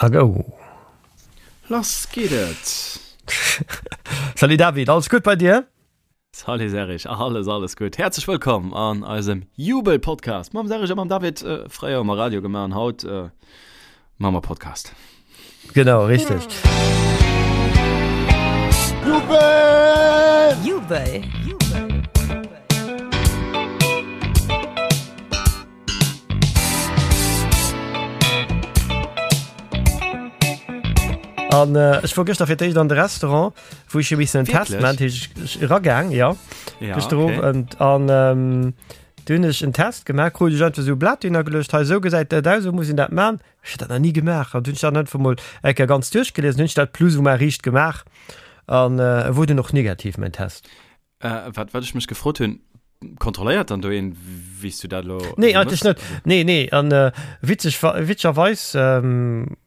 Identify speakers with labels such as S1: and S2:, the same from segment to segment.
S1: A go!
S2: Lass geet et!
S1: Salut David, alles gutt bei dir?
S2: Salut Serge, alles alles gutt. Häerzlech wëllkomm an eisem Jubel-Podcast mam Serge a mam David. Fréier hu mer Radio gemaach an haut maache mer Podcast.
S1: Genau, richteg.
S3: Jubel! Jubel!
S1: An äh, ech wor gëschter fir d'éischt an de Restaurant, wou ech jo missen en Test
S2: Wierklech?
S1: man, ech eragaang, ja.
S2: Ja,
S1: Gëschter
S2: okay.
S1: Owend. An ähm, du hunn ech en Test gemaach, krut ech einfach esou e Blat hinner geluecht, hei esou gesäit dat aus, esou muss een dat man. Ech hat dat nach ni gemaach. An du hunn ech dat einfach mol eng Kéier ganz duerchgeliesen, hunn ech dat plus ou moins riicht gemaach. An äh, e wor dunn och negativ, mäin Test.
S2: Äh, wat, wat ech mech gefrot hunn, kontrolléiert dann do een, wéi s du dat elo
S1: Nee, eigentlech net. Nee, nee. An äh, witzeg, witzegerweis ähm,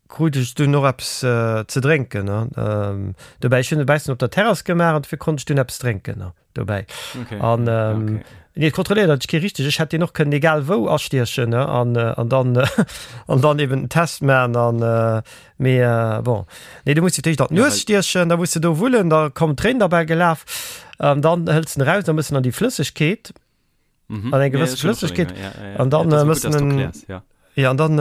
S1: krut ech dunn och eppes äh, ze drénken. Ne? Ähm, dobäi, ech hunn e bessen op der Terrass gemaach an dofir konnt ech dunn eppes drénken ne? dobäi.
S2: Okay.
S1: An ähm,
S2: okay.
S1: nee, et kontrolléiert eigentlech kee richteg. Ech hätt deen och kënnen egal wou astiechen ne? An, äh, an dann, an dann eben den Test maachen an äh, Mee bon, nee, du muss fir d'éischt an d'Nues stiechen, da muss de do wullen, da kommen d'Tréinen derbäi gelaf, an dann hëls den eraus, da mëss en an déi Flëssegkeet, an eng gewësse Flëssegkeet, an dann mëss en, jo, an dann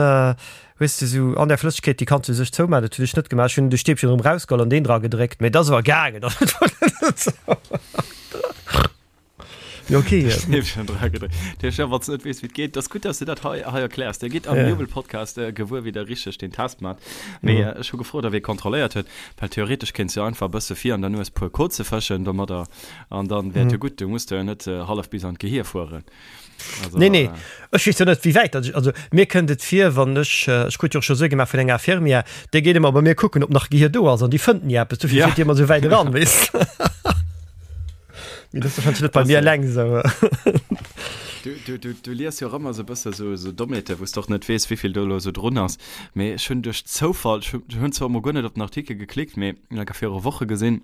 S1: hues de sou an där Flëssegkeet, déi kanns du sech zoumaachen, dat hunn ech net gemaach, ech hunn de Stäbchen erëm erausgeholl an deen dra gedréckt, mee et ass awer gaangen. Ja, okay.
S2: Stäbchen dra gedréckt. Dir ja, wann du net weess, wéi et geet, das gutt, dass du dat hei, hei erkläers. Dir gitt am
S1: Ja.
S2: Jubel-Podcast äh, gewuer, wéi der richteg den Test mat. Mee
S1: Mhm.
S2: äh, ech hu gefrot, ob ee kontrolléiert huet, well theoretesch kéints du einfach e bësse vir an der Nues puer Koze fëschen domadder an dann wär et jo
S1: Mhm.
S2: gutt. Du muss du jo net äh, hallef bis an d'Gehir fueren.
S1: Also, Nee, nee.
S2: äh,
S1: Ech weess jo net, wéi wäit dat ech, also mir kënnt et vir, wann ech, äh, ech krut jo och scho Sue gemaach vun enger Infirmière, déi geet ëmmer bei mir kucken, ob nach Gehir do ass an déi fënnt ni eppes, dofir
S2: Ja.
S1: fiert déi ëmmer esou wäit eran, weess. Mee das wahrscheinlich net bei mir eleng esou.
S2: Du, du, du, du lies jo och ëmmer esou e bësse sou, sou Dommheete, wou s de och net weess, wéivill do elo esou drun ass. Mee ech hunn duerch Zoufall, ech hunn zwar emol guer net op den Artikel geklickt, mee enker viru Woche gesinn,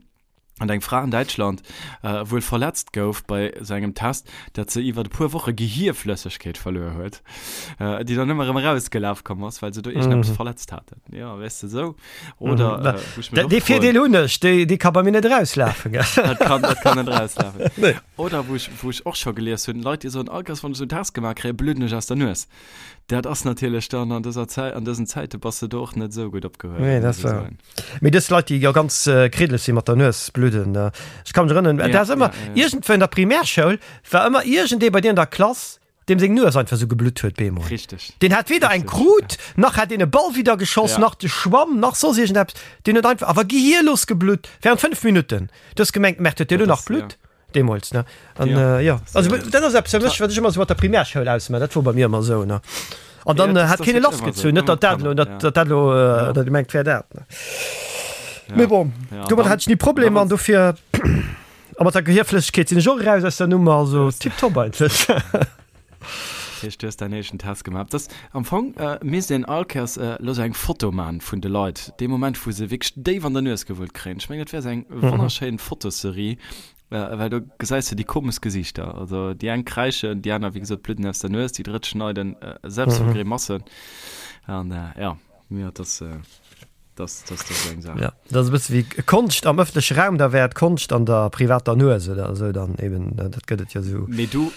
S2: datt eng Fra an Däitschland wuel verletzt gouf bei esou engem Test, datt se iwwer e puer Woche Gehierflëssegkeet verluer huet, déi dann ëmmer erëm erausgelaf komm ass, well se do iergendeppes verletzt haten. Jo, weess de, esou. Oder,
S1: Mhm.
S2: äh, wou ech mech och
S1: Dee
S2: froen-
S1: Virdeel hunn ech, déi, déi ka bei mir net erauslafen. Gell?
S2: Dat kann, dat kann net rauslafen.
S1: Nee.
S2: Oder wou ech, wou ech och scho gelies hunn, Leit, déi soen, all Kéiers wann ech esou en Test gemaach kréien, bludden ech aus der Nues. Dat ass natierlech dann an dëser Zäit, an dësen Zäite bass de do och net esou gutt opgehuewen,
S1: Nee, dat
S2: muss
S1: ass
S2: ech
S1: wahr.
S2: soen.
S1: Mee dës Leit, déi jo ganz äh, kriddeleg si mat der Nues bludden, äh, ech kann mech erënneren,
S2: Ja,
S1: dat ass ëmmer,
S2: ja, ja.
S1: iergendwou an der Primärschoul war ëmmer iergendee bei dir an der Klass, Deem seng Nues einfach sou geblutt huet bemol.
S2: Richteg.
S1: Deen hat weder eng
S2: Richteg,
S1: krut, nach hat deen e Ball widder geschoss,
S2: Ja.
S1: nach de Schwamm, nach soss iergendeppes. Deen huet einfach, awer gehierlos geblutt, während 5 Minutten. Du hues gemengt, merkt huet dee lo
S2: Dat
S1: nach
S2: ass,
S1: Blutt? Deemools, ne? An,
S2: Ja,
S1: äh, jo.
S2: dat ass,
S1: Also,
S2: äh,
S1: dat ass eppes fir mech, wat ech ëmmer sou mat der Primärschoul ausmaachen. Dat wor bei mir ëmmer sou, ne? An
S2: Ja,
S1: dann
S2: dat ass-
S1: hat
S2: dat
S1: keen e
S2: ass wierklech ëmmer
S1: lassgezunn,
S2: sou,
S1: net
S2: ëmmer
S1: datt dat elo,
S2: Kanner,
S1: datt
S2: ja.
S1: datt dat elo,
S2: Ja.
S1: datt ee mengt, wär dat, ne?
S2: Ja.
S1: Mee bon,
S2: Ja, an
S1: domadder
S2: dann-
S1: hat ech ni Problemer an dofir. A mat der Gehierflëssegkeet sinn ech och eraus aus der Nummer, also tiptop eigentlech.
S2: Dat heescht, du hues däin éischten Test gemaach. Dat ass am Fong misst een all Kéiers elo sou eng Foto man vun de Leit, dee Moment wou se wierklech déif an der Nues gewullt kréien. Ech mengen dat wär sou eng wonnerschéin Fotoserie, well do gesäis de déi komesch Gesiichter. Also déi eng kräischen, déi aner wéi gesot bludden aus der Nues, déi drëtt schneiden selbst vu Grimassen. An jo, jo, dat ass. Das, das, das ist eng Saach.
S1: Ja, dat ass e bësse wéi Konscht am ëffentleche Raum, da wär et Konscht an der privater Nues oder esou dann eben, dat gëtt et jo esou.
S2: Mee du,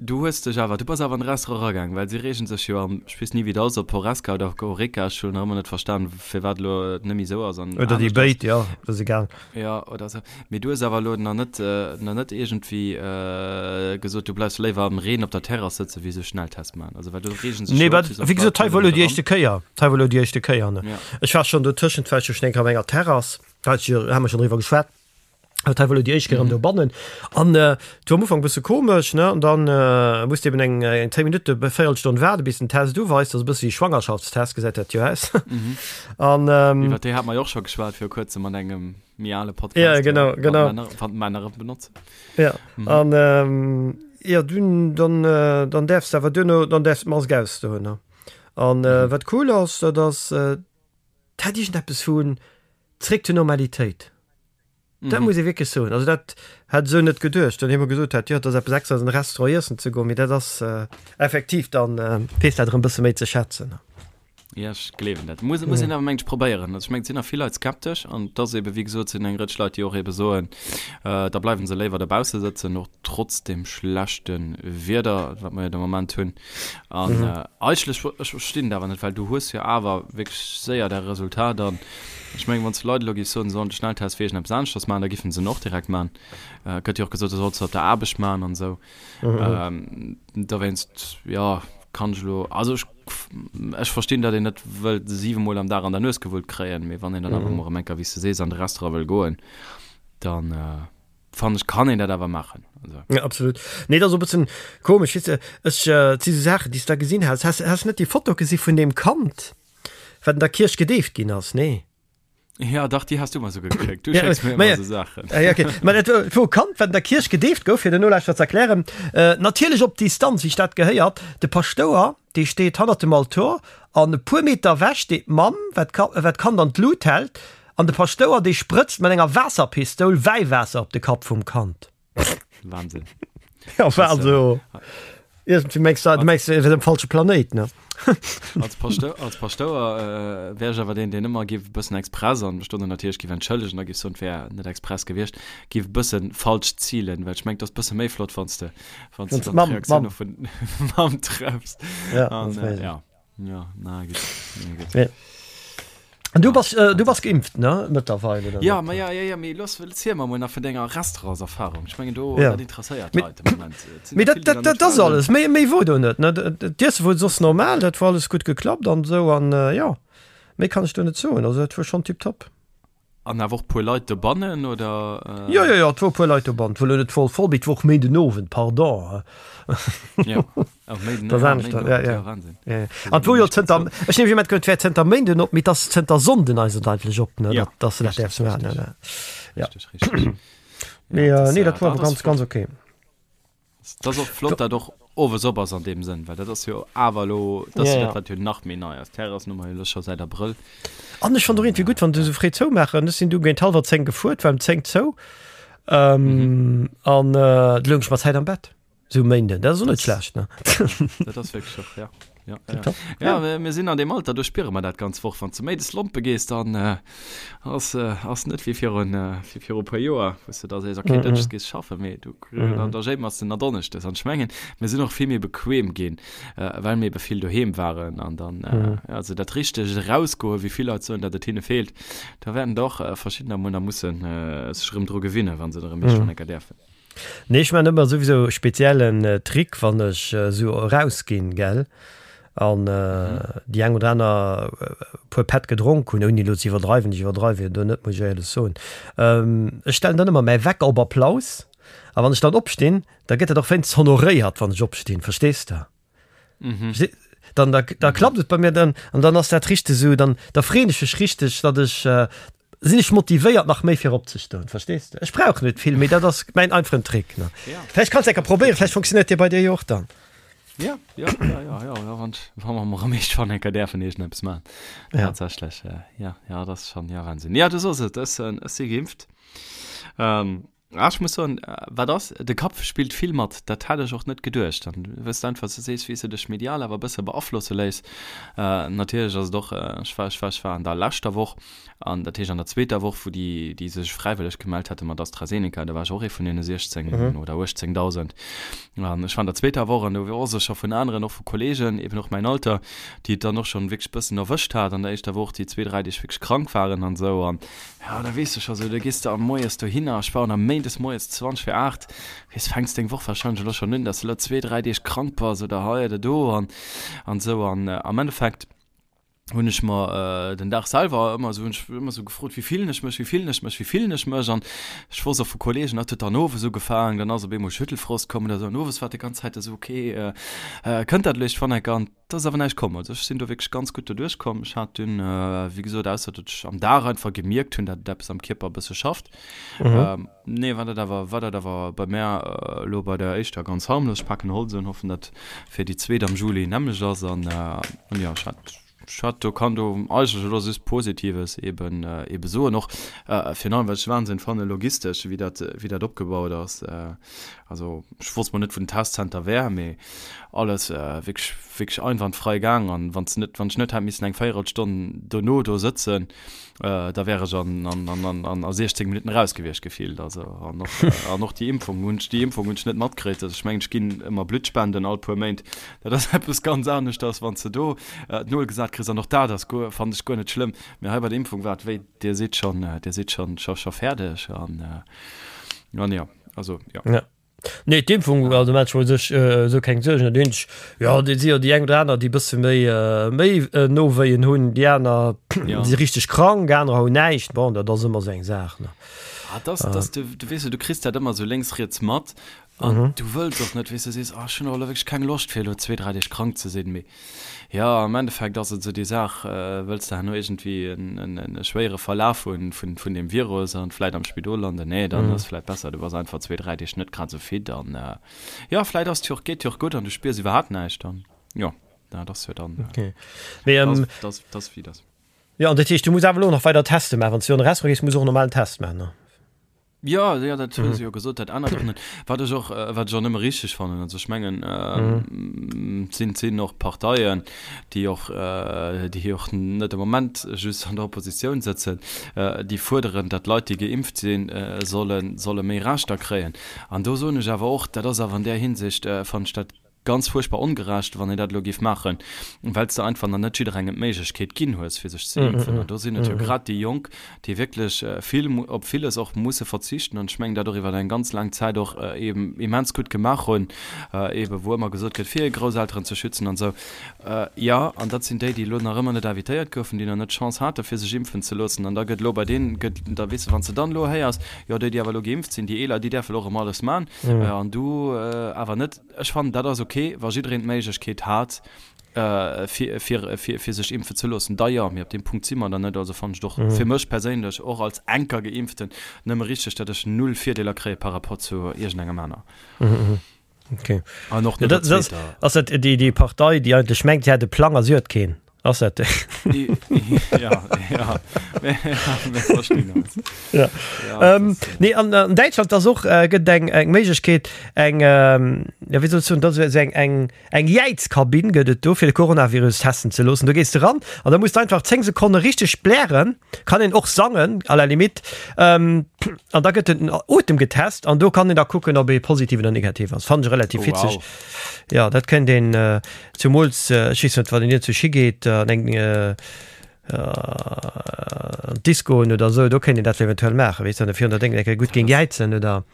S2: du hues dech awer, du bass awer an de Restaurant eragaang, well si reegen sech jo am, ech weess ni wéi et ass, ob Horesca oder Horeca, ech hunn nach ëmmer net verstan, firwat elo et net méi esou ass an
S1: Oder déi
S2: anescht ass.
S1: béid, jo, dat ass egal.
S2: Jo, oder esou. Mee du hues awer elo nach net, nach net iergendwéi gesot, du bleifs léiwer am Reen op der Terrass sëtzen, wéi esou Schnelltest maachen. Also well do reegen sech
S1: Nee,
S2: jo och
S1: wat,
S2: bis op
S1: wéi gesot,
S2: d'Leit
S1: hei wor elo
S2: net
S1: déi
S2: eran.
S1: éischte Kéier, hei wor elo déi éischte Kéier, ne.
S2: Ja.
S1: Ech war schonn dotëschent, war ech jo schonn eng Kéier op enger Terrass, da hat ech jo, hu mer schonn driwwer geschwat, awer hei wor elo déi éischt Kéier erëm dobannen. An et war am Ufank e bësse komesch, ne, an dann muss de eben eng, eng 10 Minutte, Véierelstonn waarde bis den Test uweist, dat ass e bësse wéi Schwangerschaftstest, gesäit dat jo aus. An.
S2: Iwwer déi hate mer jo och scho geschwat viru kuerzem an engem. méi ale Podcast.
S1: Ja, genau, genau.
S2: Wann Männer, wann Männer et benotzen.
S1: Ja, mhm. an ähm, ja, dun, dann, äh, dann därfst awer duerno, dann därfst d'Mask ausdoen. Ne? An äh, mhm. wat cool ass, dat ass, äh, dat hat iergendeppes vun zréck zur Normalitéit. Mhm. Dat muss ee wierklech soen. Also dat hat esou net geduecht. Dann hu mer gesot hat, jo, dat ass eppes extra an de Restaurant iessen ze goen, mee dat ass äh, effektiv dann äh, weess dat erëm bësse méi ze schätzen. Ne?
S2: Ja, ech gleewen dat. Muss, muss een awer mengt probéieren. Also ech mengt, et sinn nach vill Leit skeptesch an et ass ebe wéi gesot, sinn eng Rëtsch Leit, déi och ebe soen, äh, da bleiwen se léiwer dobausse sëtzen, och trotz dem schlechte Wieder, wat mer jo de Moment hunn. An mhm. äh, eigentlech, ech verstinn dat awer net, well du hues jo awer wierklech séier däi Resultat an ech mengen, wann s du Leit elo giffs soen, se sollen de Schnelltest fir iergendeppes aneschters maachen, da giffen se en och direkt maachen. Äh, gëtt jo och gesot, du solls se op der Aarbecht maachen an esou. Mhm. Ähm, dowéinst, ja, kann ech elo, also ech, ech verstinn, datt een net wëllt 7 Mol am Dag an der Nues gewullt kréien, mee wann een dann awer mol erëm eng Kéier, wéi s de sees, an de Restaurant wëll goen, dann äh, fannen ech, kann een dat awer maachen.
S1: Also. Ja, absolut. Nee, dat ass och e bëssen komesch, weess de, ech, äh, et si sou Saachen, déi s de da gesinn has. Has, has net déi Foto gesi vun deem Kand, wat an der Kierch gedeeft ginn ass? Nee.
S2: Ja, dach, déi has du mer souguer geschéckt. Du schécks mir ëmmer esou Saachen.
S1: Ja, okay. Mä dat wor e Kand, wat an der Kierch gedeeft gouf, fir den Nolauschterer ze erklären. Natierlech op Distanz, wéi sech dat gehéiert. De Paschtouer, dee steet hannert dem Altor an e puer Meter ewech steet d'Mamm, wat d'Kand an d'Lut hält. An de Paschtouer, dee sprëtzt mat enger Waasserpistoul Wäiwaasser op de Kapp vum Kand.
S2: Wahnsinn.
S1: Ja, war also irgendwie mengst du, du mengst, wir sind am falsche Planet, ne?
S2: Als Pasteur, als Paschtouer äh, wär ech awer deen, deen ëmmer giff e bëssen express an mech do dann natierlech giff entschëllegen, da giff soen, et wär net express gewiescht, giff e bëssen falsch zilen, well ech mengen, et ass bësse méi flott, wann s de, wann s de dann
S1: Mamm,
S2: d'Reaktioun
S1: Mamm.
S2: och vun Mamm treffs.
S1: Ja,
S2: An,
S1: das
S2: äh,
S1: weiß ich.
S2: ja. Ja, na gutt. Na gutt.
S1: Ja. An du bass, äh, du bass geimpft, ne? Mëttlerweil, oder
S2: Ja,
S1: net?
S2: ma ja, ja, ja, mee looss, erziel mer mol nach vun denger Restaurantserfahrung. Ech mengen do,
S1: Ja.
S2: dat interesséiert
S1: Mee,
S2: d'Leit de Moment. Et sinn
S1: mee
S2: der
S1: dat,
S2: vill, déi
S1: dat,
S2: nach net
S1: dat ass
S2: waren.
S1: alles. Méi, méi wor do net, ne? D'Iesse wor soss normal, dat wor alles gutt geklappt an esou an, äh, jo, méi kann ech do net soen. Also dat wor schonn tiptop.
S2: An awer och puer Leit dobannen, oder?
S1: Jo, jo, jo, et wor e puer Leit dobannen. Et wor elo net voll voll, mee et wor och Méindenowend, pardon.
S2: Jo, och Méinden,
S1: Dat ass
S2: ja,
S1: anescht,
S2: Méindenowend,
S1: ja, ja.
S2: ja, Wahnsinn.
S1: Ja, ja. An et wor jo zënter, ech neem ech et wär zënter Méinden op, mee et ass zënter Sonnden eigentlech op, ne,
S2: Ja,
S1: datt, datt se dat
S2: richtig,
S1: däerfs maachen,
S2: richtig.
S1: ne, ne. Ja.
S2: Richtig, richtig.
S1: Mee,
S2: Ja, dat
S1: nee,
S2: ass,
S1: dat wor
S2: dat
S1: awer
S2: ass
S1: ganz, ganz
S2: flott.
S1: okay.
S2: Dat ass och flott, dat och owes op ass an deem Sënn, well dat ass jo awer elo, dat ass jo dat, wat jo nach méi nei ass. D'Terrassen hu mer jo elo scho säit Abrëll.
S1: An ech fannt och iergendwéi gutt, wann se esou fréi zoumaachen. Ech sinn du géint hallwer 10 gefuer, et war ëm 10 zou. An du loung ech mat Zäit am Bett, esou um Méinden. Dat ass och net schlecht, ne?
S2: Dat ass wierklech och, ja. Ja, ja. Ja, ja, mir sinn an deem Alter, do spiere mer dat ganz Woch. Wann s de méides lompe gees, dann äh, ass, äh, ass net wéi virun, äh, wéi viru puer Joer, wou s de da sees, okay, mm -hmm. Dënschdes gees schaffen, mee du, mm -hmm. dann, da jéimers de na Donneschdes. An ech mengen, mir sinn och vill méi bequem ginn, äh, well mir ebe vill doheem waren. An dann, äh, mm -hmm. also dat richtegt Erausgoen, wéi vill Leit soen, datt et hinne feelt, da wäerten der och äh, verschiddener mol nach mussen äh, sech erëm dru gewinnen, wa se erëm mm -hmm. enker däerfen.
S1: Nee, ech man ëmmer souwisou e speziellen Trick, wann ech esou erausginn, gell, an déi eng oder aner puer Pätt gedronk hunn, ouni elo ze iwwerdreiwen, ech iwwerdreiwe jo do net, muss ech éierlech soen, ech stellen dann ëmmer mäi Wecker op Applaus, a wann ech dann opstinn, da gëtt dat och wéinstens honoréiert, wann ech opstinn, verstees de? Mhm. Dann da, da mhm. klappt et bei mir dann an dann ass dat richteg sou, dann da freeën ech mech richteg, datt ech äh, sinn ech motivéiert nach méi fir opzestoen, verstees du? Ech brauch net vill, mee dat ass mäin einfachen Trick ne. Ja. Vläicht kannst du enker probéieren, vläicht funktioniert dee bei dir jo och dann.
S2: Ja, ja, ja, ja, ja, ja, wann, wann mer mol erëm iergendwann enker däerfen iergendeppes maachen. Ja. Tatsächlech, äh, ja, ja, dat ass schon, ja, Wahnsinn. Ja, du soos et, ech, ech si geimpft. Ähm, Ah, ech muss soen, wat ass, de Kapp spillt vill mat, dat hat ech och net geduecht. An wëss de einfach, du sees, wéi s de dech medial awer e bësse beaflosse léiss. Natierlech ass et och, ech war, ech war, ech war an der leschter Woch, an dat heescht an der zweeter Woch, wou déi, déi sech fräiwëlleg gemellt hate mat AstraZeneca, do war ech och ee vun deene 16 oder 18.000. An ech war an der zweeter Woch an do wor ech scho vun aneren, och vu Kollegen, eben och mäin Alter, déi et dann och schonn wierklech bëssen erwëscht hat an der éischter Woch, déi zwee, dräi Deeg wierklech krank waren an esou. An Ja, da weess de scho sou, da gees de am moies dohinner, ech war am méindes moies 20 fir 8, weess, fänks deng Woch warscheinlech elo schonn un, dass de elo zwee, dräi Deeg krank bass oder hei oder do an an esou. An am Endeffekt hunn ech mer den Dag selwer ëmmer esou, hunn ech ëmmer esou gefrot, wéi fillen ech mech, wéi fillen ech mech, wéi fillen ech mech? An ech wosst och vu Kolleegen, dat huet dann owes ugefaangen, dann ass op eemol Schüttelfrost komm oder esou an owes war et déi ganz Zäit esou, okay, kënnt dat elo iergendwann enker? An Et ass awer näischt komm. Also ech sinn do wierklech ganz gutt doduerch komm. Ech hat dunn, wéi gesot, ausser datt ech am Dag einfach gemierkt hunn, datt et eppes am Kierper e bësse schafft. Mhm. Nee, war dat awer, war dat awer bei mär elo bei der éischter ganz harmlos. Ech paken Holz un, hoffen, datt fir déi zweet am Juli nämmlecht ass. An, an jo, ech hat. Ech hat do, kann do eigentlech elo just Positives eben, eben soen. Och virun allem, wat ech Wahnsinn fannen, logistesch, wéi dat, wéi dat opgebaut ass. Also ech wosst mol net, wou den Testzenter wär, mee alles wierklech, wierklech einwandfrei gaang. An wann s net, wann ech net hätt missen eng Véierelstonn dono do sëtzen, da wär ech an, an, an, an, an a 16 Minutten raus gewiescht gefillt. Also an och, an och déi Impfung hunn ech, déi Impfung hunn ech net matkritt. Also ech mengen, ech ginn ëmmer Blutt spenden all puer Méint. Dat ass eppes ganz aneschters, wann s de do d'Nol gesat kriss. An och dat ass guer, fannen ech guer net schlëmm. Mee hei bei der Impfung war et wéi, Dir sidd schonn, Dir sidd schonn, scho, scho fäerdeg. An, an jo, also jo.
S1: Ja. Nee, d'Impfung, also maache ech mer u sech esou keng Suergen. Dat eenzeg, jo, et si jo déi eng oder aner, déi e bësse méi, méi Nowéien hunn, déi aner si richteg krank, anerer hunn näischt. Bon, dat ass ëmmer esou eng Saach, ne.
S2: Ah, dat ass, du, du weess jo, du kriss dat ëmmer esou lénks, riets mat an du wëlls och net, weess du, sees, ah, ech hunn och elo wierklech keng Loscht, fir elo zwee, dräi Deeg krank ze sinn, mee Jo, am Endeffekt ass et esou déi Saach, wëlls de herno iergendwéi en schwéiere Verlaf hu vun deem Virus an vläit am Spidol landen? Nee, dann ass vläit besser, du bass einfach zwee, dräi Deeg net grad esou fit an jo, vläit ass et jo och, geet jo och gutt an du spiers iwwerhaapt näischt an jo, dat ass jo dann, dat ass wéi et ass.
S1: Jo, an dat heescht, du muss awer elo nach weider Teste maachen. Wann s du an e Restaurant gees, muss du och normal en Test maachen, ne?
S2: Jo, jo, dat hu se jo gesot, dat ännert och net. Wat ech och, wat ech och nëmme richteg fannen, also ech mengen, et sinn, sinn och Parteien, déi och, déi och net am Moment just an der Oppositioun sëtzen, déi fuerderen, datt Leit, déi geimpft sinn, sollen, solle méi Rechter kréien. An do soen ech awer och, dat ass awer an där Hinsicht, fannen ech dat Ganz fuerchtbar ongerecht, wann een dat elo géif maachen, well s de einfach nach net jidderengem d'Méiglechkeet ginn hues, fir sech ze impfen. An do sinn et jo grad déi Jonk, déi wierklech vill, op villes och musse verzichten an ech mengen, dat och iwwer eng ganz laang Zäit och eben immens gutt gemaach hunn, eben wou ëmmer gesot gëtt, fir hir Grousselteren ze schützen an esou. Jo, an dat sinn déi, déi elo nach ëmmer net invitéiert goufen, déi nach net d'Chance hate fir sech impfen ze loossen. An da gëtt elo bei deenen, gëtt, da weess de, wann s de dann elo héiers, jo déi, déi awer elo geimpft sinn, déi Eeler, déi däerfe elo och erëm alles man an du awer net. Ech fannen, dat ass ok, wa jiddereen d'Méiglechkeet hat, fir, fir, fir, fir sech impfen ze loossen, da jo. Mee op deem Punkt si mer dann net. Also fannen ech et och fir mech perséinlech, och als enker Geimpften, nëmme richteg, datt ech null Virdeeler kréie par rapport zu iergendengem aner.
S1: Okay.
S2: An och net der zweeter.
S1: Ass dat déi, déi Partei, déi eigentlech mengt, si hätt e Plang a si huet keen? Ass dat déi?
S2: Ja, ja. Mir verstinn eis.
S1: Ja. Ja, ähm, nee, an, an Däitschland ass och äh, gëtt eng eng Méiglechkeet eng ähm, ja, wéi soll ech soen, dat ass eng eng eng Jäizkabinn gëtt et do fir de Coronavirus testen ze loossen. Do gees de ran an da muss de einfach 10 Sekonne richteg blären, kann een och sangen à la limite ähm, an da gëtt den Otem getest an do kann een da kucken, ob ee positiv oder negativ ass. Fannen ech relativ
S2: Oh,
S1: witzeg.
S2: wow.
S1: Ja, dat kéint een äh, Zumools, ech weess net, wann een iergendwou higeet an eng an d'Discoen oder esou, do kéint een dat eventuell maachen, weess de, an virun der Déngen eng Kéier gutt géing jäizen oder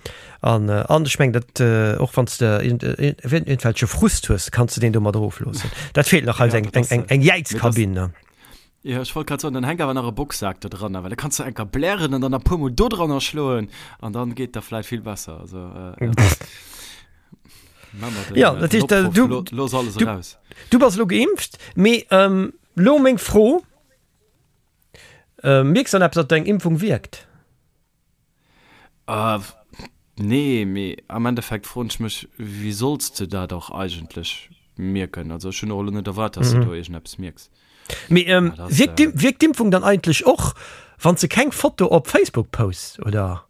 S1: an an ech mengen dat och wann s de iergendwelche Frust hues, kanns de deen domat erofloossen. Dat feelt nach eis, eng eng eng Jäizkabinn, ne?
S2: Jo, ech wollt grad soen, dann hänk awer nach e Boxsak do dranner, well da kanns du enker blären an dann nach puer mol do dranner schloen an dann geet der vläit vill besser. Also, äh, ja.
S1: Mach mal den, ja, dat heescht, äh, du,
S2: lo, los alles
S1: du,
S2: raus.
S1: Du bass lo geimpft, mee ähm, lo meng Fro, äh, mierks dann eppes, datt deng Impfung wierkt?
S2: Äh, nee, mee am Endeffekt froen ech mech, wéi solls de dat och eigentlech mierken? Also ech hunn och elo net erwaart, dass de do iergendeppes mierks.
S1: Mee ähm, wierkt d'Im- wierkt d'Impfung dann eigentlech och, wann s de keng Foto op Facebook posts, oder?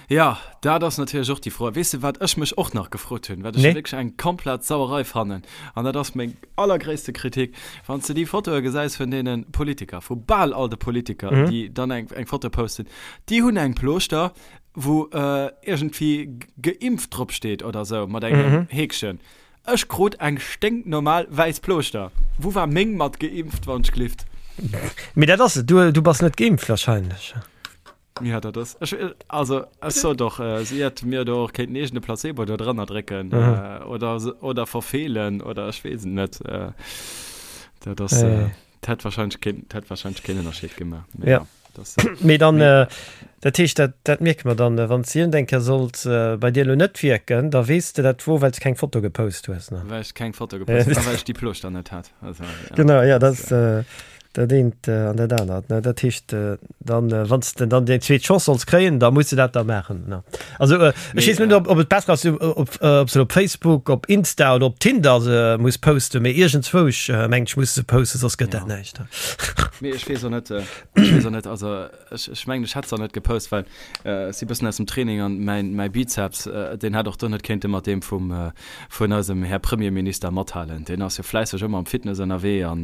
S2: Ja, dat ass natierlech och déi Fro. Weess de, wat ech mech och nach gefrot hunn, wat ech
S1: Nee.
S2: wierklech eng komplett Sauerei fannen, an dat ass meng allergréisste Kritik, Wann s de déi Fotoe gesäis vun deene Politiker, vu bal all de Politiker, mhm. déi dann eng, eng Foto posten, déi hunn eng Plooschter, wou äh, iergendwéi geimpft drop steet oder sou, mat engem mhm. Häkchen. Ech krut eng sténknormal wäiss Plooschter. Wou war meng mat geimpft, wann ech glift?
S1: Mee dat ass et, du, du bass net geimpft wahrscheinlech.
S2: Ja, dat ass. Ech, also, ech sot och, äh, si hätt mir do och kéinten eegene Placebo do drënner drécken mhm. äh, oder, oder verfeelen oder ech weess et net. Äh, dat ass. Äh, dat hätt wahrscheinlich keen, dat hätt wahrscheinlich keen Ënnerscheed gemaach.
S1: Mee, ja.
S2: Das, äh,
S1: Mee dann, äh, dat heescht, dat, dat mierke mer dann, äh, wann s iergendeng Kéier sollt äh, bei dir lo net wierken, da weess de dat wor, well s keng Foto gepost hues.
S2: Ne? Well ech keng Foto gepost hunn, well ech déi Plooschter net hat. Also,
S1: ja. Genau, ja, das, äh, äh. Dat eent an dat anert, ne? Dat heescht, dann, wann s de dann deng zweet Chance solls kréien, da muss de dat da maachen, ne? Also, ech weess net, ob, ob et besser ass, ob, ob se op Facebook, op Insta oder op Tinder se muss posten, mee iergendzwousch, mengen ech, muss se posten, soss gëtt dat näischt.
S2: Mee ech weess och net, ech weess och net, also ech, ech mengen, ech hätt se och net gepost, well ech si bëssen aus dem Training an mäin, mäi Bizeps, deen hätt och do net kéinte mat deem vum, vun eisem Här Premierminister mathalen. Deen ass jo fläisseg ëmmer am Fitness ënnerwee an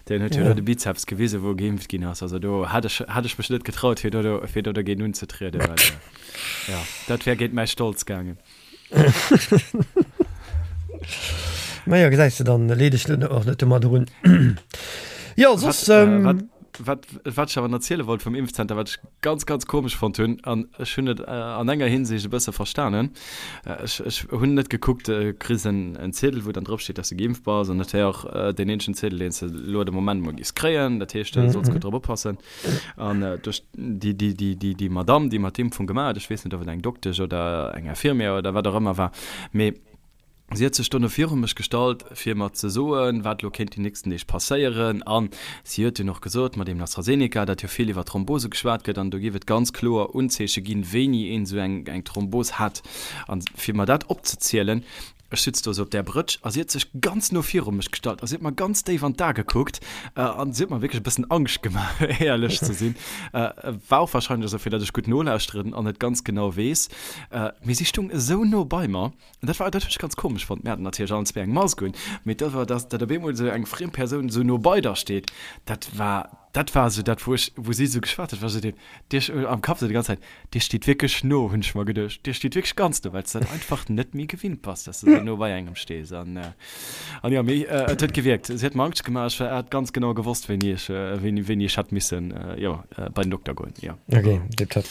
S2: deen huet jo do de Bizeps gewisen, wou geimpft ginn ass. Also do hätt ech, hätt ech mech net getraut, fir do, fir do dogéint unzetrieden, well jo, dat wär géint mäi Stolz gaangen.
S1: Majo, gesäis de, dann leet ech och net domadder un. Jo, soss.
S2: Wat, wat, wat ech awer nach erziele wollt vum Impfzenter, wat ech ganz, ganz komesch fonnt hunn, an ech hunn et an enger Hinsicht e bësse verstanen, ech, ech hunn net gekuckt, du kriss en, en Ziedel, wou dann drop steet, dass du geimpft bass, an dat wär och deen eenzegen Ziedel, deen s de elo de Moment mol giffs kréien, dat heescht, du solls gutt drop oppassen. An duerch déi, déi, déi, déi, déi Madamm, déi mer d'Impfung gemaach huet, ech weess net, ob et eng Doktesch oder eng Infirmière oder wat och ëmmer war, mee si huet sech dono viru mech gestallt, fir mer ze soen, wat elo kéint déi nächsten Deeg passéieren. A si huet dunn och gesot, mat deem AstraZeneca, datt jo vill iwwer Thrombose geschwat gëtt an do géif et ganz kloer Unzeeche ginn, wéini een esou eng, eng Thrombos hätt. A fir mer dat opzezielen, Ech sutz do sou op där Brëtsch a si huet sech ganz no viru mech gestallt a si huet mer ganz déif an d'A gekuckt an si huet mer wierklech e bëssen Angscht gemaach, éierlech ze sinn. War och warscheinlech esou, fir datt ech gutt nolauschteren an et ganz genau weess. Mee si stung esou no bei mer an dat war, dat hunn ech ganz komesch fonnt. Mir haten natierlech allen zwee eng Mask un, mee dat war, datt op eemol esou eng friem Persoun esou no bei der steet, dat war, dat war esou dat, wou ech, wou si esou geschwat huet, war esou deen, Dir, am Kapp esou déi ganz Zäit, Dir steet wierklech no, hunn ech mer geduecht. Dir steet wierklech ganz no, well s de dat einfach net méi gewinnt bass, dass de sou no bei engem stees. An, an jo, mee et huet gewierkt. Si huet mer Angscht gemaach. Ech hat ganz genau gewosst, wéini ech, wéini, wéini ech hätt missen, jo, bei den Dokter goen, jo.
S1: Ok, tipptopp.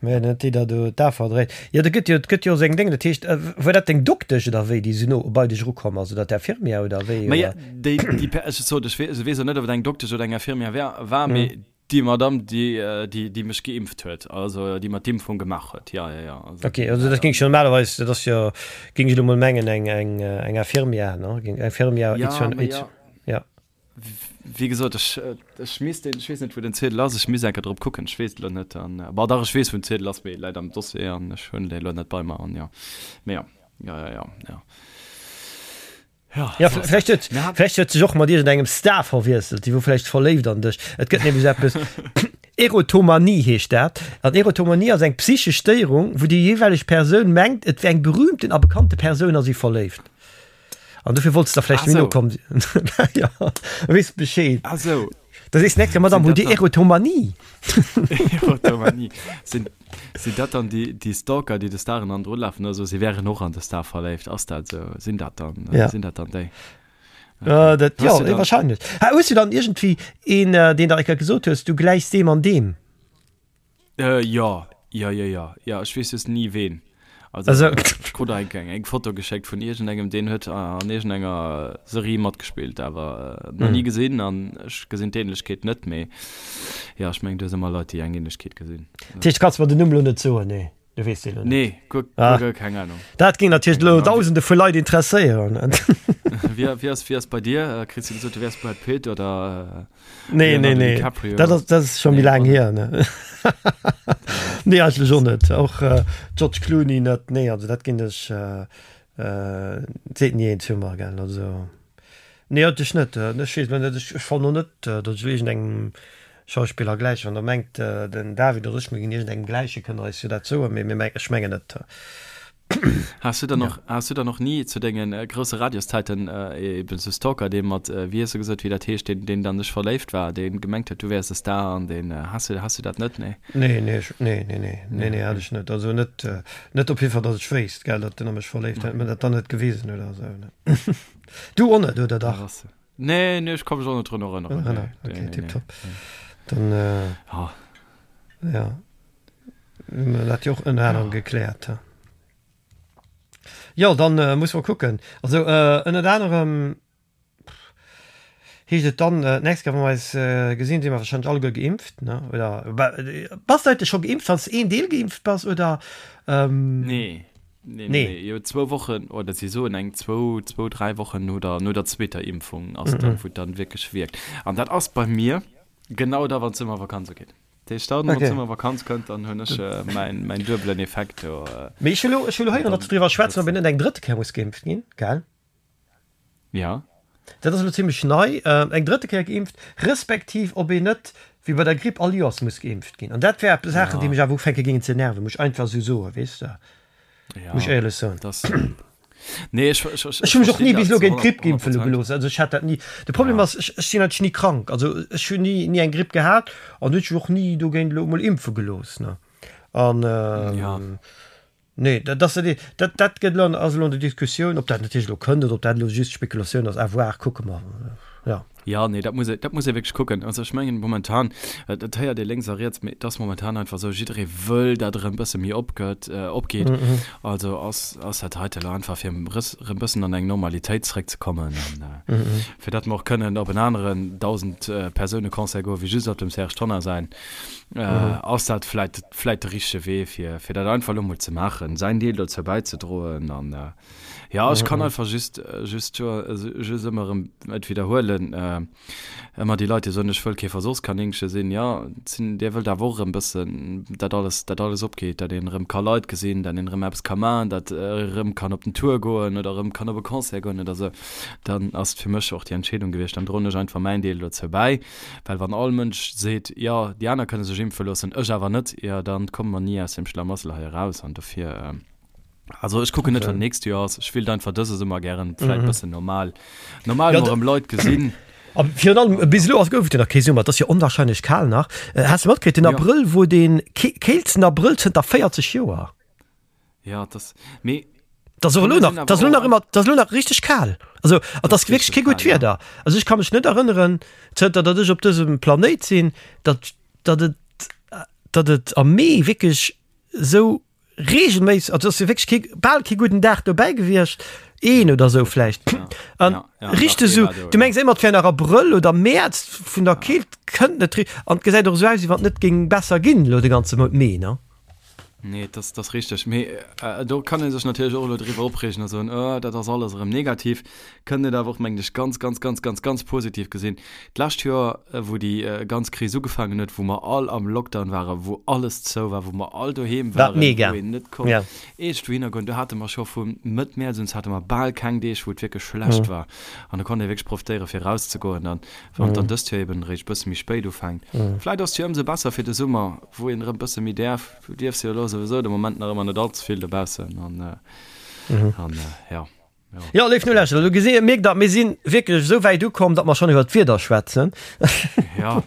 S1: Mä net déi der do d'A verdréit. Jo, do gëtt jo, et gëtt jo och seng Déngen. Dat heescht, war dat deng Doktesch oder wéi, déi sou no bei dech erukomm ass, oder d'Infirmière oder wéi,
S2: oder? Maja, déi, déi, ech sot, ech weess och net, ob et eng Doktesch oder eng Infirmière war, war, mee Déi Madame, déi, déi, déi mech geimpft huet, also déi mer d'Impfung gemaach huet, ja, ja, ja.
S1: Also, okay, also dat géing ech normalerweis, dat ass jo, géing ech elo mol mengen, eng, eng, eng Infirmière, ne? Géing, Infirmière,
S2: ja, ma ja. ja. Wéi gesot, ech, ech misst den, ech weess net, wou den Ziedel ass, ech misst eng Kéier drop kucken, ech weess et elo net. An, bon, dach, ech weess, wou den Ziedel ass, mee e läit am Dossier an ech hunn dee elo net bei mer an jo. Mee jo, ja, ja, ja, ja.
S1: Ja, ja vläicht huet, vläicht huet sech och mat iergendengem Star verwiesselt, déi wor vläicht verléift an dech. Et gëtt nämlech eppes, Erotomanie heescht dat. An Erotomanie ass eng psychesch Stéierung, wou déi jeeweileg Persoun mengt, et wär eng berühmten a bekannte Persoun a si verléift. An dofir wollts de da vläicht méi no kommen. Ja, weess Bescheed.
S2: Ah sou.
S1: Da sees de nächst Kéier, Madame, hutt Dir Erotomanie?
S2: Erotomanie. Sinn, sinn dat dann déi, déi Stalker, déi de Staren hannendru lafen oder so, si wären och an de Star verléift? Ass dat esou? Sinn dat dann,
S1: Ja.
S2: sinn dat dann déi?
S1: Äh, dat,
S2: Hues
S1: ja,
S2: du dann-
S1: wahrscheinlech. Ha, hues du dann iergendwéi een, äh, deen der eng Kéier gesot hues, du gläichs deem an deem?
S2: Äh, jo, jo, jo, jo, jo, ech weess just ni ween. Also,
S1: Also-
S2: ech krut eng, eng, eng Foto geschéckt vun iergendengem, deen huet an iergendenger Serie matgespillt, awer äh, nach ni gesinn an ech gesinn d'Ähnlechkeet net, mee jo, ech mengen, du hues ëmmer Leit, déi eng Ähnlechkeet gesinn.
S1: Dat heescht, du kanns mer den Numm lo net soen, nee? Du weess deen lo net.
S2: Nee, guer,
S1: Ah.
S2: guer, guer keng Ahnung.
S1: Dat géing natierlech elo Dausende vu Leit interesséieren.
S2: Wie, wie ass, wie ass bei dir? Äh, Kriss du gesot, du wäers Brad Pitt oder äh,
S1: Nee, nee,
S2: Leonardo
S1: nee.
S2: DiCaprio?
S1: Dat ass, dat ass scho méi
S2: Nee,
S1: laang
S2: och
S1: hier, ne? Nee, eigentlech och net. Och äh, George Clooney net. Nee, also dat ginn ech äh, äh, seet ni een zu mer, gell. Also nee, eigentlech net. Äh, Ech weess net, ech, ech fannen och net, äh, datt ech iergendengem Schauspiller gläich. Wann der mengt, äh, den David oder ech, mir ginn iergendengem gläichen, kënnt der eis jo dat soen, mee mir meng, ech mengen net.
S2: Has du dann och, has du dann och ni zu dengen äh, grousse Radioszeiten äh, eben sou Stalker, dee mat, äh, wéi hues du gesot, wéi dat heescht, deen, deen an dech verléift war, dee gemengt huet, du wäers e Star an deen, äh, has du, has du dat net? Nee.
S1: Nee, nee, ech, nee, nee, nee, nee, nee, hat ech net. Also net, äh, net op jidde Fall, datt ech wéisst, gell, datt den a mech verléift hätt, mä dat dann net gewisen huet oder sou, ne. Du och net, oder dach?
S2: Ass, nee, nee, ech ka mech och net drun erënneren.
S1: Erënneren,
S2: Nee,
S1: okay,
S2: nee, nee,
S1: tipptopp.
S2: nee.
S1: Dann, äh,
S2: Ah.
S1: ja. Dat jo och ënner anerem gekläert. Jo, dann äh, muss mer kucken. Also äh, ënnert anerem heescht et dann äh, d'nächst Kéier, wa mer eis äh, gesinn, si mer wahrscheinlech alleguer geimpft, ne? Oder ba, bass du eigentlech scho geimpft, wann s de een Deel geimpft bass, oder?
S2: Ähm, Nee. Nee, nee. nee. Jo, zwou Wochen, oder si soen eng zwou, zwou, dräi Wochen no der, no der zweeter Impfung ass mm -hmm. dann, wou dann wierklech wierkt. An dat ass bei mir genau da, wann d'Summervakanz ugeet. Dat heescht, dann, wann okay. d'Summervakanz kënnt, dann hunn ech äh, mäin, mäin duebelen Effekt do.
S1: Äh, Mee ech hu lo, ech hu lo héieren, datt se driwwer schwätzen, ob een net eng drëtte Kéier muss geimpft ginn, gell?
S2: Ja.
S1: Dat ass elo zimlech nei, eng drëtte Kéier geimpft, respektiv ob een net, wéi bei der Gripp, all Joers muss geimpft ginn. An dat wäre Saachen, déi mech awer ufänke géingen ze nerven, muss ech einfach esou soen, weess de, muss ech éierlech soen.
S2: Nee, ech, ech,
S1: ech, ech hu mech och ni bis elo géint d'Gripp impfe gelooss. Also ech hat dat ni. De Problem ass, ech, ech sinn eigentlech ni krank. Also ech hunn ni, ni eng Gripp gehat an hunn mech och ni dogéint elo emol impfe gelooss, ne. An, Nee, dat ass dat, dat gëtt elo, ass elo an der Diskussioun, ob dat natierlech elo kënnt oder ob dat elo just Spekulatioun ass, à voir, kucke mer,
S2: jo. Jo, nee, dat muss ee, dat muss ee wierklech kucken. Also ech mengen momentan, dat héiert ee lénks a riets, mee et ass momentan einfach esou, jidderee wëll, datt erëm bësse méi opgëtt, opgeet. Also ass, ass dat heite elo einfach fir erëm bëssen an eng Normalitéit zeréckzekommen an fir datt mer och kënnen op en aneren 1.000-Persoune-Concert goen, wéi just op dem Serge Tonnar säin. Ass dat vläit, vläit de richtege Wee, fir, fir dat einfach elo mol ze maachen, säin Deel dozou bäizedroen. An jo, ech kann einfach just, just, just ëmmer erëm et widderhuelen, ëmmer déi Leit, déi soen, ech wëll kee Versuchskaninche sinn, jo, sinn, Dir wëllt awer och erëm bëssen, dat alles, dat alles opgeet, dat een erëm ka Leit gesinn, dat een erëm eppes ka maachen, dat erëm kann op den Tour goen oder erëm kann op e Concert goen oder esou, dann ass et fir mech och déi Entscheedung gewiescht, dann droen ech einfach mäin Deel dozou bäi. Well wann all Mënsch seet, jo, déi aner kënne sech impfe loossen, ech awer net, jo, da komme mer ni aus deem Schlamassel hei eraus. An dofir, also ech kucken net, wat d'nächst Joer ass. Ech wéilt einfach dëse Summer gären vläicht e bëssen normal, normal mol erëm Leit gesinn.
S1: A virun allem, bis elo ass, gouf et jo nach kee Summer, et ass jo onwahrscheinlech kal nach. Has de matkritt, den Abrëll wor dee keelsten Abrëll zënter 40 Joer.
S2: Ja, das, mee.
S1: Das och elo nach, das elo nach ëmmer, das elo nach richteg kal. Also, an das wierklech kee gutt Wieder. Also ech ka mech net erënneren, zënter datt ech op dësem Planéit sinn, datt, datt et, datt et am Mee wierklech esou regelméisseg, also ass jo wierklech kee, bal kee gudden Dag dobäi gewiescht, een oder esou vläicht. An richteg esou, du mengs ëmmer et wär nach Abrëll oder Mäerz, vun der Keelt kënnt net, an et gesäit och esou aus, wéi wann et net géing besser ginn elo de ganze Mount Mee, ne?
S2: Nee, dat ass richteg. Mee do kann ee sech natierlech och elo driwwer opreegen a soen, oh, dat ass alles erëm negativ. Kënnt et awer och, mengen ech, ganz, ganz, ganz, ganz, ganz positiv gesinn. D'lescht Joer, wou déi ganz Kris ugefaangen huet, wou mer all am Lockdown waren, wou alles zou war, wou mer all doheem waren, wou een net konnt iergendwouhinner goen, do hate mer scho vu Mëtt Mäerz un, hate mer bal keng Deeg, wou et wierklech schlecht war. An do konnt ee wierklech profitéieren, fir erauszegoen. An wann et dann dëst Joer eben eréischt e bësse méi spéit ufänkt, vläicht ass et jo ëmsou besser fir de Summer, Wou een erëm bësse méi däerf. Du dierfs jo elo souwisou de Moment nach ëmmer net all ze vill dobaussen an an ja.
S1: Jo, léif Nolauschterer, elo gesi mierkt der, mir si wierklech esou wäit ukomm, datt mer schonn iwwer d'Wieder schwätzen.
S2: Ja.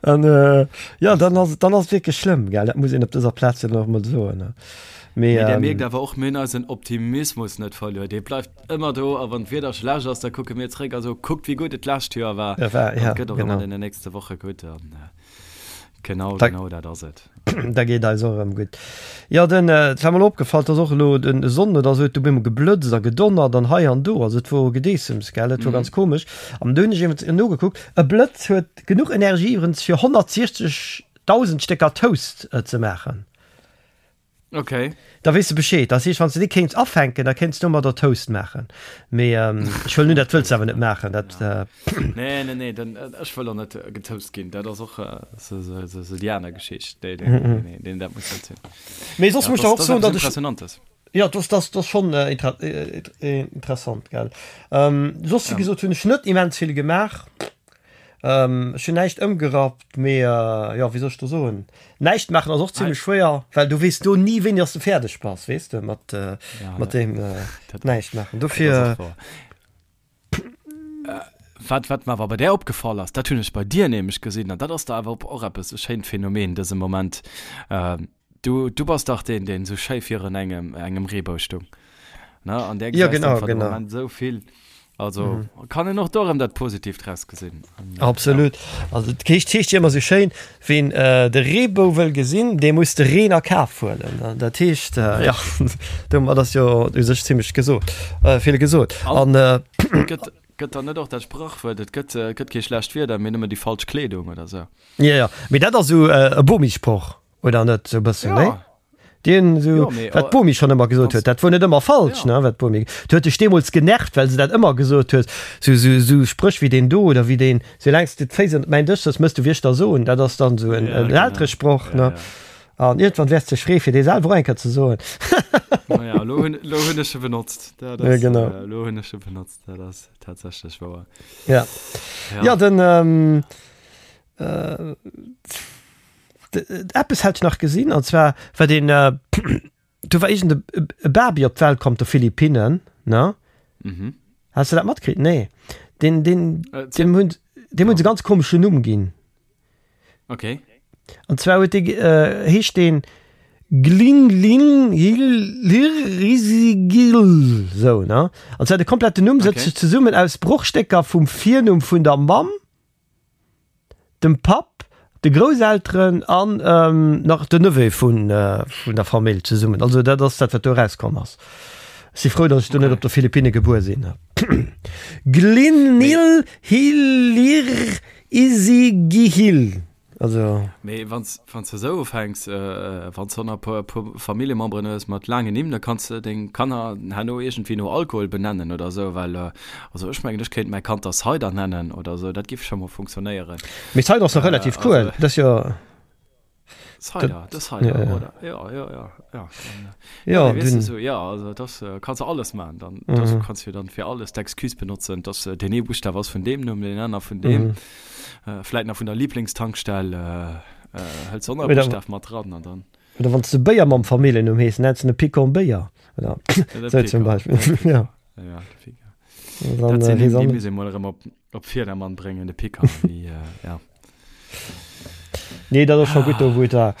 S1: An jo, dann ass dann ass et wierklech schlëmm, gell? Dat muss een op dëser Plaz jo nach emol soen.
S2: Mee Mee där mierkt awer och, mir hunn eisen Optimismus net verluer. Dee bleift ëmmer do a wann d'Wieder schlecht ass, da kucke mir zréck a soe, kuckt wéi gutt et d'lescht Joer war.
S1: Ja, war,
S2: ja,
S1: genau.
S2: An et gëtt och ëmmer an deenen nächste Woche gutt. An Genau, da, genau dat ass et.
S1: Da geet eis och erëm gutt. Jo, den, et war mer elo opgefall, dass och elo den Sonn oder esou huet du bemol geblëtzt a gedonnert an hei an do. Also et wor Gedeessems, gell, et wor ganz komesch. An du hunn ech iwwrens nogekuckt, e Blëtz huet genuch Energie iwwrens fir 160.000 Stécker Toast ze maachen.
S2: Okay.
S1: Da weess de Bescheed. Dat heescht, wann s de déi kéints afänken, da kéints domadder Toast maachen. Mee ech huelen un, dat wëlls de awer net maachen. Dat.
S2: Nee, nee, nee, dann, ech wëll och net getoast ginn. Dat ass och esou déi aner Geschicht. Nee, nee, nee, nee, nee, dat muss net sinn.
S1: Mee soss muss ech der och soen, datt ech.
S2: Impressionantes.
S1: Jo, dat ass, dat ass schonn interessant, gell. Soss, wéi gesot, hunn ech net immens vill gemaach. Ech hunn näischt ëmgerappt, mee jo, wéi soll ech do soen, näischt maachen ass och zimlech schwéier, well du weess do ni wéini dass de fäerdeg bass, weess de, mat mat deem näischt maachen. Dofir.
S2: Wat wat mer awer bei där opgefall ass, dat hunn ech bei dir nämlech gesinn, an dat ass da awer och eppes e schéint Phänomen dëse Moment, Du, du bass dach deen, deen esou schéi virun engem, engem Reebou stung, ne? An där
S1: Ja,
S2: gesäis
S1: genau,
S2: einfach de
S1: genau.
S2: Moment esou vill. Also kann een och do erëm dat Positiivt draus gesinn.
S1: An, ja. Absolut. Also et heescht, heescht jo ëmmer esou schéin, Ween de Reebou wëll gesinn, dee muss de Reen a Kaf huelen. Dat heescht, ja, domat ass jo u sech zimlech gesot, vill gesot.
S2: An gëtt, gëtt dann net och dat Sprachwuert, et gëtt, gëtt kee schlecht Wieder, mee nëmmen déi falsch Kleedung oder esou?
S1: Jo, jo, mee dat ass esou e Bomi-Sproch. Oder net sou bëssen, nee? Deen esou, wat d'Bomi schonn ëmmer gesot huet, dat wor net ëmmer falsch, ne, wat d'Bomi, du huet dech deemools genervt, well se dat ëmmer gesot huet, sou, sou, sou Spréch wéi deen do oder wéi deen, soulaang s de d'Féiss ënnert mäin Dësch sëtz, mëss du wéi ech der soen, dat ass dann esou en Elteresproch, ne. An iergendwann wäers de dech freeë fir dee selwer och eng Kéier ze soen.
S2: Naja, elo hunn, elo hunn ech e benotzt, dat ass, elo hunn ech e benotzt, dat ass tatsächlech wouer.
S1: Ja, ja, den, Eppes hat ech nach gesinn, an zwar war deen, do war iergend e Baby op d'Welt komm op de Philippinnen, ne?
S2: Mhm.
S1: Has de dat matkritt? Nee. Deen, deen, deem hunn, deem hunn se e ganz komeschen Numm ginn.
S2: Okay.
S1: An zwar huet dee, heescht deen Glinglinghiririgil, sou, ne? An zwar de kompletten Numm sëtzt sech zesummen aus Brochstécker vum Virnumm vun der Mamm, dem Papp, de Grousselteren an nach den Neveu vun der Famill zesummen. Also dat ass dat, wat do erauskomm ass. Ech si frou, datt ech do net op de Philippinne gebuer sinn. Glinil Hilir Isigihil.
S2: Also. Mee wann s de esou ufänks, wann s de nach e puer Familljememberen hues mat laangen Nimm, da kanns de deng Kanner herno iergendwéi no Alkohol benennen oder esou, well also ech mengen, ech kéint mäi Kand da Cider nennen oder esou, dat giff scho mol funktionéieren.
S1: Mee Cider ass nach relativ cool, dat ass jo.
S2: Cider, de Cider, oder? Jo, jo, jo, jo. Ja, nee, weess du, so, ja, also das äh, kannst du alles machen. Dann mhm. das kannst du dann fir alles d'Excuse benotzen, dass äh, den ee Buchstaw ass vun dem Numm, den aner vun dem. Mhm. Äh, vläit nach vun der Lieblingstankstell äh, äh, hëls du och nach e Buchstaw mat dran an dann.
S1: Oder wann du Béier mam Familljennumm hees, nennst du ne Picon Béier. Oder so zum Beispiel.
S2: Ja. Ja, de Picon. Dann, dat sinn äh, déi muss ee mol erëm op Op Virdermann bréngen de Picker wéi ja.
S1: Nee, dat ass scho gutt do wou et war.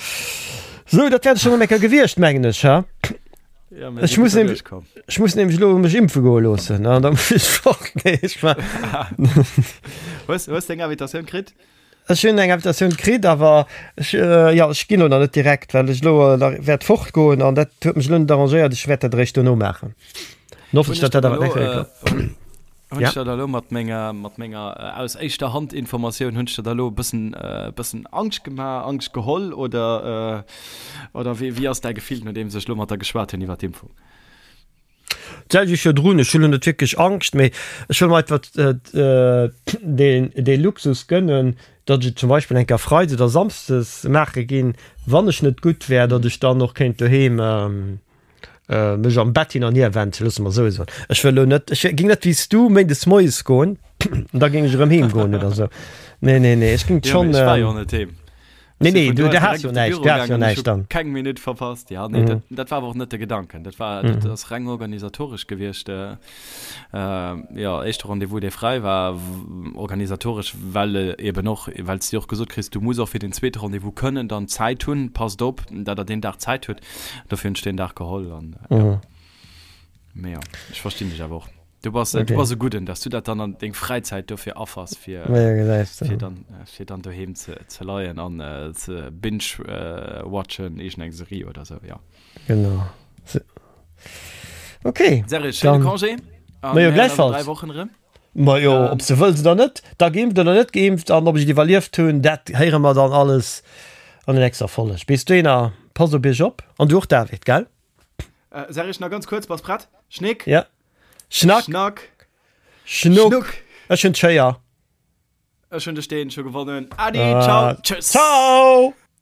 S1: Sou, dat wär et schonn eng Kéier gewiescht, mengen ech, ha?
S2: Ja,
S1: mir si gutt derduerch komm. Ech muss nämlech elo mech impfe goe loossen an da muss ech fort. Nee, ech war.
S2: Hues, hues de eng Invitatioun kritt?
S1: Ech hunn eng Invitatioun kritt, awer ech, jo, ech ginn elo nach net direkt, well ech elo nach wäert fortgoen an dat huet mech elo net arrangéiert. Ech wäert dat eréischt dono maachen. An hoffen ech, datt dat awer
S2: nächst Kéier klappt. Hunn ech der da elo mat menger, mat menger aus éischter Hand Informatioun, hunn ech der da elo e bëssen, e bëssen Angscht gemaach, Angscht geholl oder, oder wéi, wéi ass däi Gefill, nodeems ech elo mat der geschwat hunn iwwer d'Impfung?
S1: D'selwecht wéi virdrun, ech hunn elo net wierklech Angscht, mee ech wëll mer einfach deen, dee Luxus gënnen, datt ech et zum Beispill eng Kéier Freides oder Samsdes maache ginn, wann ech net gutt wär, datt ech dann och kéint doheem, mech am Bett hin an hier wenden, loosse mer esou soen. Ech wëll elo net, ech géing net wéi s du méindes moies goen an da géing ech erëm heem goen oder esou. Nee, nee, nee, ech géing
S2: schonn. Jo, mee ech war jo net heem.
S1: Nee, nee, du, du has jo näischt, du has jo näischt dann.
S2: Keng Minutt verpasst, ja, nee, dat, dat war awer och net de Gedanken. Dat war, dat ass reng organisatoresch gewiescht. Jo, éischte Rendez-vous, dee fräi war, organisatoresch, well eben och, well s de och gesot kriss, du muss och fir den zweete Rendez-vous kënnen dann Zäit hunn, passt op, datt der deen Dag Zäit hutt. Dofir hunn ech deen Dag geholl an ja. Mee jo, ech verstinn dech awer och. Du bass, okay. du bass e Gudden, dass du dat dann an deng Fräizäit dofir affers, fir,
S1: ja,
S2: fir dann, fir dann doheem ze, ze leien an äh, ze binge-watchen, äh, iergendeng Serie oder sou, ja.
S1: Genau. Okay.
S2: Serge, schéine Congé.
S1: An mir hören eis an
S2: 3 Wochen erëm.
S1: Majo, ob s de wëlls oder net, da geimpft oder net geimpft an ob ech et iwwerlieft hunn, dat héiere mer dann alles an der nächster Folg. Bis dohinner, passt op iech op an du och David, gell?
S2: Serge, nach ganz kuerz, bass prett? Schnéck?
S1: Ja. Schnack.
S2: Schnack.
S1: Schnuck. Schnuck. Ech hunn d'Schéier.
S2: Ech hunn de Steen scho gewonnen. Adi, ciao, tschüss.
S1: Ciao.